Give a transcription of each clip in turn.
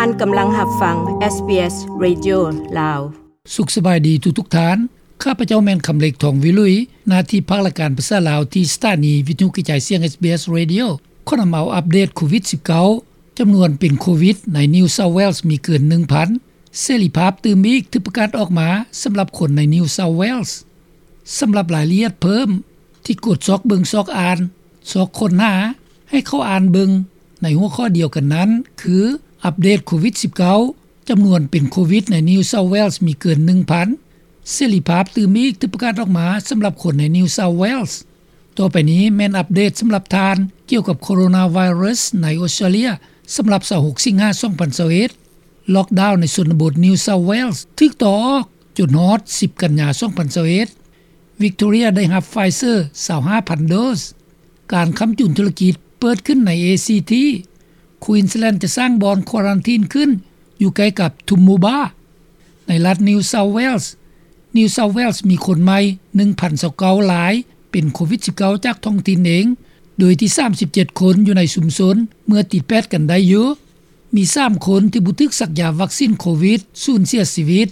ທ່ານກຳລັງຮັບຟັງ ເອສບີເອສ ເຣດິໂອ ລາວ. ສຸກສະບາຍດີທຸກໆທ່ານ. ຂ້າພະເຈົ້າແມ່ນຄຳເລັກ ທອງວິລຸຍ, ໜ້າທີ່ພາກລາຍການພາສາລາວທີ່ສະຖານີວິທະຍຸກະຈາຍສຽງ ເອສບີເອສ ເຣດິໂອ ຂໍນຳເອົາອັບເດດໂຄວິດສິບເກົ້າ ຈຳນວນເປັນໂຄວິດໃນ New South Wales ມີເກີນໜຶ່ງພັນ, ເສລີພາບຕື່ມອີກຖືກປະກາດອອກມາສຳລັບຄົນໃນ New South Wales. ສຳລັບລາຍລະອຽດເພີ່ມ ທີ່ກົດຊອກເບິ່ງຊອກອ່ານ ຊອກຄົ້ນຫາ ໃຫ້ເຂົ້າອ່ານເບິ່ງໃນຫົວຂໍ້ດຽວກັນນັ້ນ ຄື ອັບເດດໂຄວິດສິບເກົ້າ ຈຳນວນເປັນໂຄວິດໃນ New South Wales ມີເກີນໜຶ່ງພັນ, ເສລີພາບຕື່ມອີກຖືກປະກາດອອກມາສຳລັບຄົນໃນ New South Wales. ຕໍ່ໄປນີ້ແມ່ນອັບເດດສຳລັບທ່ານ ກ່ຽວກັບໂຄໂຣນາໄວຣັສໃນອົດສະຕຣາເລຍ ສຳລັບຊາວຫົກສິງຫາ ສອງພັນຊາວເອັດ. ລັອກດາວໃນຊົນນະບົດ New South Wales ຖືກຕໍ່ອອກຈົນຮອດສິບກັນຍາ ສອງພັນຊາວເອັດ. ວິກໂຕເຣຍໄດ້ຮັບ Pfizer ຊາວຫ້າພັນໂດສ. ການຄ້ຳຈຸນທຸລະກິດເປີດຂຶ້ນໃນ ເອຊີທີ. Queensland ຈະສ້າງບ່ອນຄວາຣັນທີນຂຶ້ນ ຢູ່ໃກ້ກັບ Toowoomba. ໃນລັດ New South Wales, New South Wales ມີຄົນໃໝ່ ໜຶ່ງພັນຊາວເກົ້າລາຍ ເປັນໂຄວິດສິບເກົ້າ ຈາກທ້ອງຖິ່ນເອງ, ໂດຍທີ່ສາມສິບເຈັດຄົນຢູ່ໃນຊຸມຊົນ ເມື່ອຕິດແປດກັນໄດ້ຢູ່. ມີສາມຄົນທີ່ບໍ່ຖືກສັກຢາວັກຊິນໂຄວິດສູນເສຍຊີວິດ.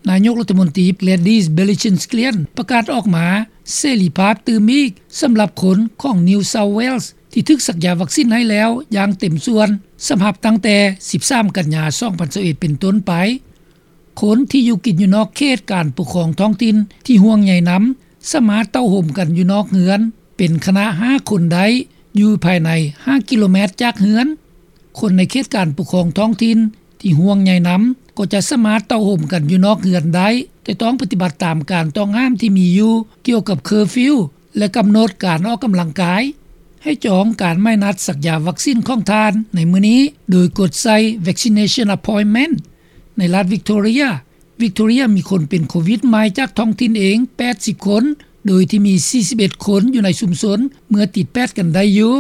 ນາຍົກລັດຖະມົນຕີ Gladys Berejiklian ປະກາດອອກມາເສລີພາບຕື່ມອີກສຳລັບຄົນຂອງ New South Wales ທີ່ຖືກສັກຢາວັກຊິນໃຫ້ແລ້ວຢ່າງເຕັມສ່ວນ ສຳລັບຕັ້ງແຕ່ສິບສາມກັນຍາ ສອງພັນຊາວເອັດ ເປັນຕົ້ນໄປ. ຄົນທີ່ຢູ່ກິນຢູ່ນອກເຂດການປົກຄອງທ້ອງຖິ່ນທີ່ຫ່ວງໃຍນຳ ສາມາດເຕົ້າໂຮມກັນຢູ່ນອກເຮືອນເປັນຄະນະຫ້າຄົນໄດ້ ຢູ່ພາຍໃນຫ້າກິໂລແມັດຈາກເຮືອນ. ຄົນໃນເຂດການປົກຄອງທ້ອງຖິ່ນທີ່ຫ່ວງໃຍນຳ ກໍຈະສາມາດເຕົ້າໂຮມກັນຢູ່ນອກເຮືອນໄດ້, ແຕ່ຕ້ອງປະຕິບັດຕາມການຕ້ອງຫ້າມທີ່ມີຢູ່ກ່ຽວກັບເຄີຟິວ ແລະ ກຳນົດການອອກກຳລັງກາຍ. ໃຫ້ຈອງການໝາຍນັດສັກຢາວັກຊິນຂອງທ່ານໃນມື້ນີ້ ໂດຍກົດໃສ່ Vaccination Appointment. ໃນລັດ Victoria, Victoria ມີຄົນເປັນໂຄວິດໃໝ່ຈາກທ້ອງຖິ່ນເອງ ແປດສິບຄົນ, ໂດຍທີ່ມີ ສີ່ສິບເອັດຄົນຢູ່ໃນຊຸມຊົນເມື່ອຕິດແປດກັນໄດ້ຢູ່.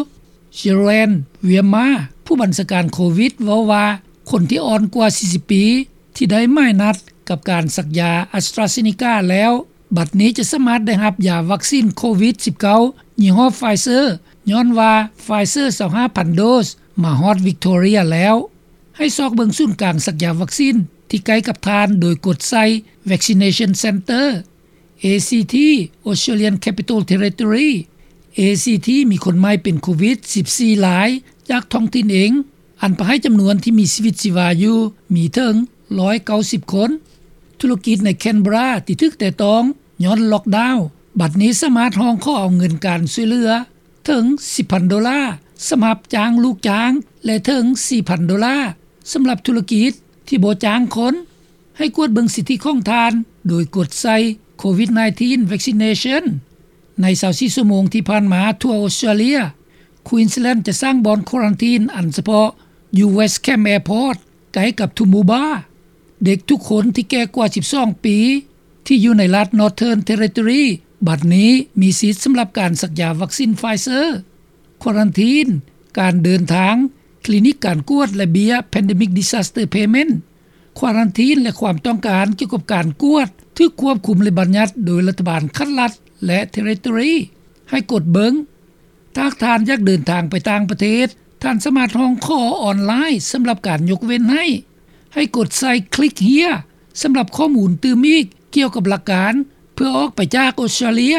Jeroen Wiersma ຜູ້ບັນຊາການໂຄວິດ ເວົ້າວ່າ ຄົນທີ່ອ່ອນກວ່າ ສີ່ສິບປີ ທີ່ໄດ້ໝາຍນັດກັບການສັກຢາ AstraZeneca ແລ້ວ ບັດນີ້ຈະສາມາດໄດ້ຮັບຢາວັກຊິນໂຄວິດສິບເກົ້າ ຍີ່ຫໍ້ Pfizer ຍ້ອນວ່າ Pfizer ຊາວຫ້າພັນໂດສ ມາຮອດ Victoria ແລ້ວ. ໃຫ້ຊອກເບິ່ງສູນກາງສັກຢາວັກຊິນທີ່ໃກ້ກັບທ່ານ ໂດຍກົດໃສ່ Vaccination Centre. ເອຊີທີ Australian Capital Territory. ເອຊີທີ ມີຄົນໃໝ່ເປັນໂຄວິດສິບສີ່ລາຍຈາກທ້ອງຖິ່ນເອງ, ອັນປະໃຫ້ຈຳນວນທີ່ມີຊີວິດຊີວາຢູ່ມີເຖິງຮ້ອຍເກົ້າສິບຄົນ. ທຸລະກິດໃນ Canberra ທີ່ຖືກແຕະຕ້ອງຍ້ອນລັອກດາວ ບັດນີ້ສາມາດຮ້ອງຂໍເອົາເງິນການຊ່ວຍເຫຼືອເຖິງສິບພັນໂດລາ ສຳລັບຈ້າງລູກຈ້າງ ແລະ ເຖິງສີ່ພັນໂດລາ ສຳລັບທຸລະກິດທີ່ບໍ່ຈ້າງຄົນ. ໃຫ້ກວດເບິ່ງສິດທິຂອງທ່ານ ໂດຍກົດໃສ່ ໂຄວິດສິບເກົ້າ Vaccination. ໃນຊາວສີ່ຊົ່ວໂມງທີ່ຜ່ານມາທົ່ວອົດສະຕຣາເລຍ, Queensland ຈະສ້າງບ່ອນຄວາຣັນທີນອັນສະເພາະຢູ່ West Camp Airport ໃກ້ກັບ Toowoomba. ເດັກທຸກຄົນທີ່ແກ່ກວ່າສິບສອງປີ ທີ່ຢູ່ໃນລັດ Northern Territory ບັດນີ້ມີສິດສຳລັບການສັກຢາວັກຊິນ Pfizer. ຄວາຣັນທີນ, ການເດີນທາງ, ຄລີນິກການກວດ ແລະ ເບ້ຍ Pandemic Disaster Payment. ຄວາຣັນທີນ ແລະ ຄວາມຕ້ອງການກ່ຽວກັບການກວດ ຖືກຄວບຄຸມ ແລະ ບັນຍັດໂດຍລັດຖະບານຂັ້ນລັດ ແລະ Territory. ໃຫ້ກົດເບິ່ງ. ຖ້າທ່ານຢາກເດີນທາງໄປຕ່າງປະເທດ, ທ່ານສາມາດຮ້ອງຂໍອອນລາຍສຳລັບການຍົກເວັ້ນໃຫ້. ໃຫ້ກົດໃສ່ Click Here ສຳລັບຂໍ້ມູນຕື່ມອີກກ່ຽວກັບຫຼັກການເພື່ອອອກໄປຈາກອົດສະຕຣາເລຍ.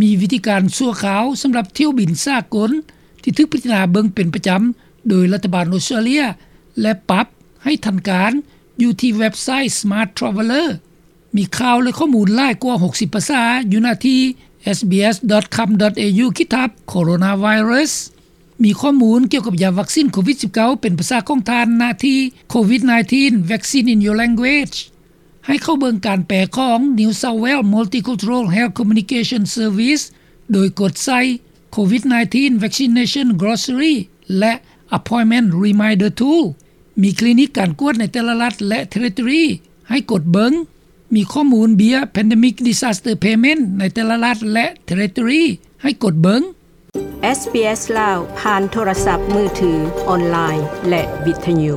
ມີວິທີການຊົ່ວຄາວສຳລັບຖ້ຽວບິນສາກົນທີ່ຖືກພິຈາລະນາເບິ່ງເປັນປະຈຳໂດຍລັດຖະບານອົດສະຕຣາເລຍ ແລະ ປັບໃຫ້ທັນການຢູ່ທີ່ເວັບໄຊ Smart Traveller. ມີຂ່າວ ແລະ ຂໍ້ມູນຫຼາຍກວ່າຫົກສິບພາສາຢູ່ໜ້າທີ່ sbs.com.au/coronavirus. ມີຂໍ້ມູນກ່ຽວກັບຢາວັກຊິນໂຄວິດສິບເກົ້າ ເປັນພາສາຂອງທ່ານ ໜ້າທີ່ COVID nineteen Vaccine in Your Language. ໃຫ້ເຂົ້າເບິ່ງການແປຂອງ New South Wales Multicultural Health Communication Service ໂດຍກົດໃສ່ COVID nineteen Vaccination Glossary ແລະ Appointment Reminder Tool. ມີຄລີນິກການກວດໃນແຕ່ລະລັດ ແລະ Territory ໃຫ້ກົດເບິ່ງ. ມີຂໍ້ມູນເບ້ຍ Pandemic Disaster Payment ໃນແຕ່ລະລັດ ແລະ Territory ໃຫ້ກົດເບິ່ງ. ເອສບີເອສ ລາວ ຜ່ານໂທລະສັບມືຖື, ອອນລາຍ ແລະ ວິທະຍຸ.